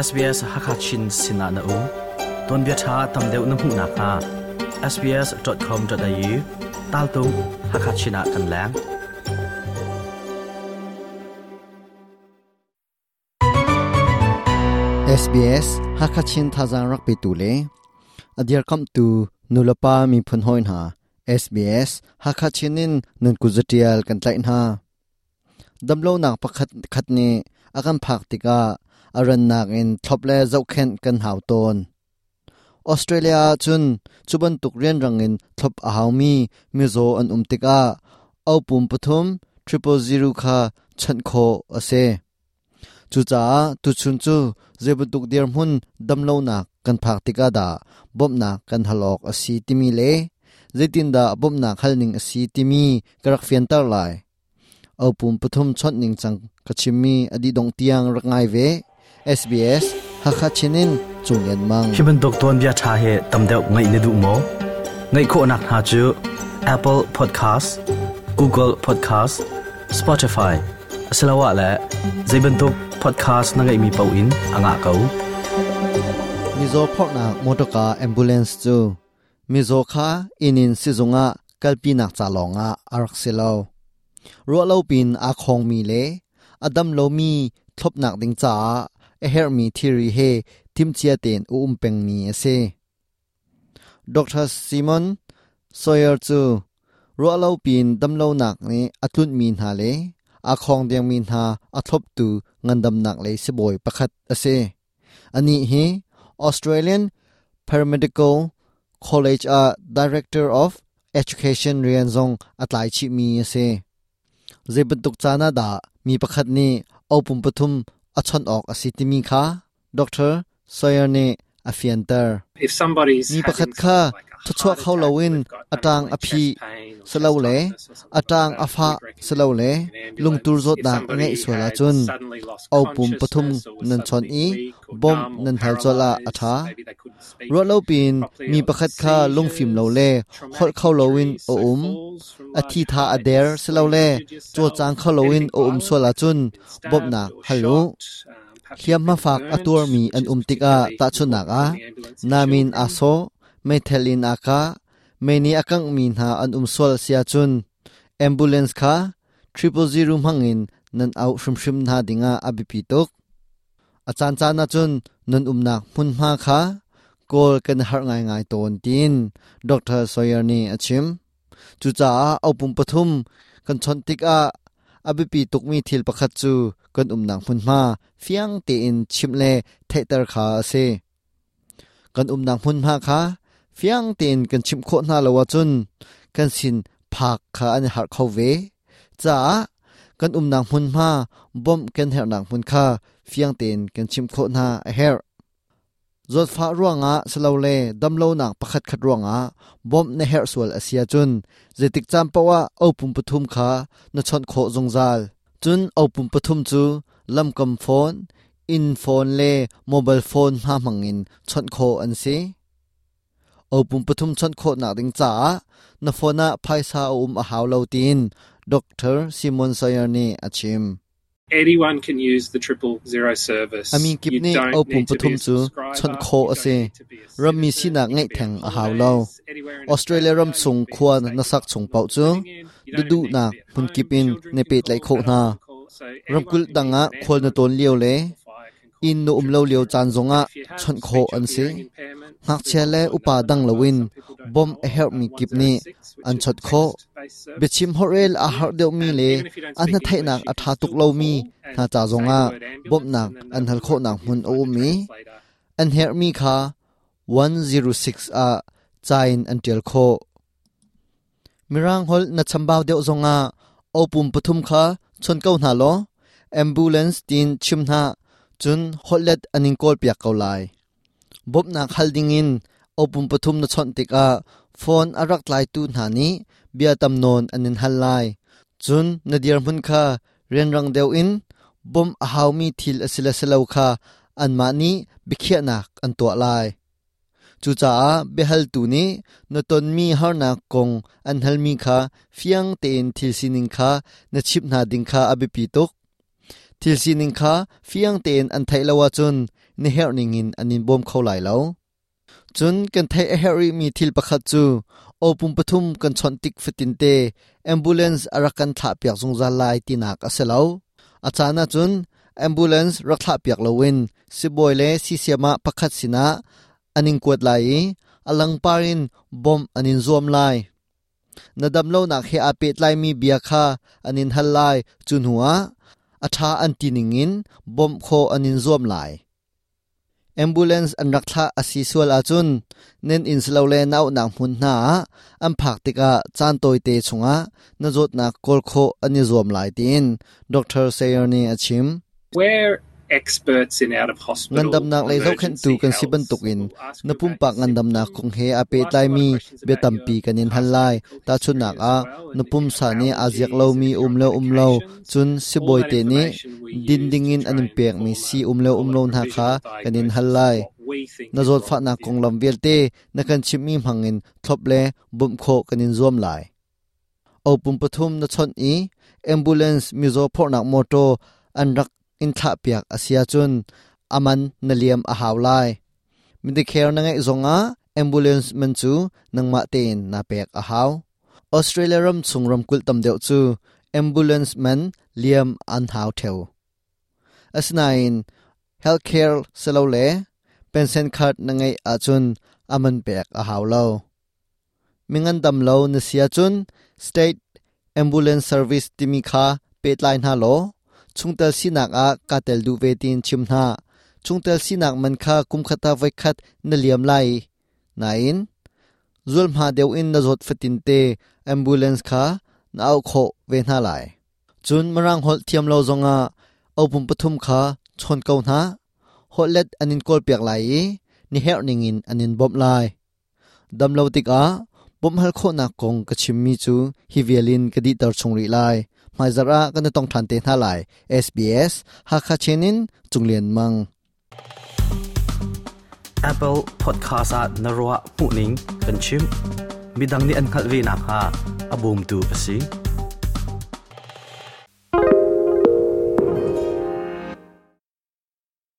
SBS Hakha Chin sinah na um. Tuanbia ṭha tam deuh na hmuh nakhnga sbs.com.au taltung Hakha Chin ah kan leng. SBS Hakachin thazaang rak petu le a dirkamhtu nulepa miphun hawi hna SBS Hakachin in nan kut zatial kan tlaih hna. Damlonak pakhat khat nih a kan phak tikah a rannak in thlop le zohkhenh kan hau tawn. Australia ah cun cu bantuk rianrang in thlop a haumi mizaw an um tikah opum pathum 000 kha chawnh khawh a si. Cucaah tuchun cu zeibantuk dirhmun damlonak kan phak tikah dah bawmhnak kan hal awk a si timi le zeitindah bawmhnak halning a si timi ka rak fianter lai. Opum pathum chawnh ningcang ka chimmi a dih dongh tiang rak ngai ve. SBS Hakha Chin in Cung Lian Mang. Hi bantuk tuanbia ṭha hi tam deuh ngaih na duh maw? Ngaih khawhnak hna cu Apple Podcast, Google Podcast, Spotify asiloah le zei bantuk podcast na ngeihmi paoh in a ngah ko. Mizaw phorhnak motorka ambulance cu mizaw kha inn in sizung ah kalpinak ca lawngah a rak si lo. Ruahlo pin aa khawngmi le a dam lomi thlopnak ding caah a herhmi thilri he timhcia tein a um pengmi a si. Dr. Simon Sawyer cu ruahlo pin damlonak nih a tlunhmi hna le aa khawng dengmi hna a thloptu ngandamnak lei sibawi pakhat a si. Anih hi Australian Paramedical College ah Director of Education rian zong a tlai chihmi a si. Zei bantuk caan ah dah mi pakhat nih opum pathum a chawnh awk a si timi kha Dr. Sawyer nih a fianter. Mi pakhat kha thawchuah kho loin a ṭang a phih silole a ṭang a fah silole lungtur zawtnak a ngeih sual ahcun opum pathum nan chawnh i bawmh nan hal colh ah a ṭha. Ruahlopiin mi pakhat kha lungfim lo le holh kho loin a um, a thitha a der silole cawlcang kho loin a um sual ahcun bawmhnak hal u. Hliamhma fak a tuarmi an um tikah tahchunhnak ah namin aa sawh, meithal in aa kah, mei nih a kanghmi hna an um sual a si ahcun ambulance kha 000 hmangin nan auh hrimhrim hna dingah a biapi tuk. A caancaan ahcun nan umnak hmunhma kha kawl kan i harh ngaingai tawn tiin Dr. Sawyer nih a chim. Cucaah opum pathum kan chawnh tikah a biapi tukmi thil pakhat cu kan umnak hmunhma fiang tein chimh le theihter kha a si. Kan umnak hmunhma kha fiang tein kan chimh khawh hna lo ahcun kan sin phak kha an i harh kho ve. Caah kan umnak hmunhma bawmh kan herhnak hmun kha fiang tein kan chimh khawh hna a herh. Zawtfah ruangah silole damlonak pakhatkhat ruangah bawmh na herh sual a si ahcun zeitik caan paoh ah opum pathum kha na chawnh khawh zungzal. Cun opum pathum cu lamkam phone, inn phone le mobile phone hna hmangin chawnh khawh an si. Opum pathum chawnh khawhnak ding caah na phone ah phaisa a um a hau lo tiin Dr. Simon Sawyer nih a chim. Anyone can use the 000 service. A min kip You nih don't opum need to be pathum a cu subscriber. chawnh khawh You a don't si. need to be a Rammi citizen. sinak You ngeih can be theng on a hau lo. holidays anywhere in Australia ram Australia. You chung can be in khua the state na you sak are chung paoh normally cu living in. You don't even need to duhduhnak be at hmun home. kip in Children na can pehtlaih call, khawh hna. adults can call. So anyone Ramkulh who dang needs ah an khual na ambulance tawn lio le or fire can call inn na um lo lio 000. caan zongah If you have chawnh khawh speech or an si. hearing impairment, Ngakchia there's le also upa another dang number. loin Some people don't bawmh know a of, herhmi kip nih 106, which an is a chawnh khawh. text-based service. Biachim holhrel aa harh deuhmi And le even if you don't a speak English, hnatheihnak you a can ṭha tuk still lomi call and hna ca say the zongah word ambulance, bawmhnak and then an they'll hal work khawhnak with you hmun to a find um a i translator. an herhmi kha 106 ah ca in an ṭial khawh. Mirang holh na chambau deuh zongah opum pathum kha chawn ko hna law ambulance tiin chim hna cun holhlet an in kawlpiak ko lai. Bawmhnak hal dingin opum pathum na chawnh tikah phone a rak tlaitu hna nih bia tam nawn an in hal lai. Cun na dirhmun kha rianrang deuh in bawmh a haumi thil a si le si lo kha anmah nih biakhiahnak an tuah lai. Cucaah biahaltu nih na tonmi harnak kong an halmi kha fiang tein thil sining kha na chimh hna ding kha a biapi tuk. Thil sining kha fiang tein an theih lo ahcun na herh ningin an in bawm kho lai lo. Cun kan theih a herh rihmi thil pakhat cu aw pum pathum kan chawnh tik fatinte ambulance a rak kan thlahpiak zungzal lai tinak a si lo. A caan ahcun ambulance rak thlahpiak loin sibawi le siisiam ah pakhat sinah an in kuat lai i a langpar in bawmh an in zuam lai. Na damlonak he aa pehtlaimi bia kha an in hal lai. Cu hnuah a ṭha an ti ningin bawmh khawh an in zuam lai. Ambulance an rak thlah a si sual ahcun nan inn silole na auhnak hmun hna ah an phak tikah caan tawite chungah na zawtnak kawl khawh an i zuam lai tiin Dr. Sayer nih a chim. We're experts in out of hospital Ngandamnak lei zohkhenhtu emergency kan si health. bantukin We'll ask na you about pumpak your ngandamnak symptoms. kong he aa We'll ask you a lot of pehtlaimi questions bia about tampi your kan in hal past lai. medical history Tahchunhnak as ah, well na and if you pumsa have nih aa ziak allergies and lomi if you're um on le um lo, medications. cun All sibawi that te nih information we din use to dingin an try in and pekmi form si a um le call um it lo hna kha provisional kan in hal diagnosis of lai. what we think Na is wrong zawtfahnak with you. konglam vialte na kan chimhmi hmangin thlop le bawmh khawh kan in zuam lai. Opum pathum na chawnh i ambulance mizaw phorhnak mawṭaw an rak in thlahpiak a si ahcun a man na liam a hau lai. Medicare na ngeih zongah ambulance man cu nangmah tein naa pek a hau. Australia ram chung ramkulh tam deuh cu ambulance man liam an hau ṭheo. Asinain healthcare silole pension card na ngeih ahcun a man pek a hau lo. Mingandam lo na si ahcun State Ambulance Service timi kha pehtlai hna law chungtel sinak ah kaa tel duh ve tiin chim hna. Chungtel sinak man kha kumkhat ah voikhat na liam lai. Nain, zulhma deuh in na zawt fatinte ambulance kha na auh khawh ve hna lai. Cun Mirang holh thiam lo zongah opum pathum kha chawn ko hna. Holhlet an in kawlpiak lai i na herh ningin an in bawmh lai. Dam lo tikah bawmhhal khawhnak kong ka chimmi cu hi vial in ka dihter chung rih lai. Hmaizarh ah kan i tong ṭhan te hna lai. SBS Hakha Chin in Cung Lian Mang. Apple Podcast ah na ruah hmuhning kan chim. Midang nih an hngalh ve nakhnga a bawmtu a si.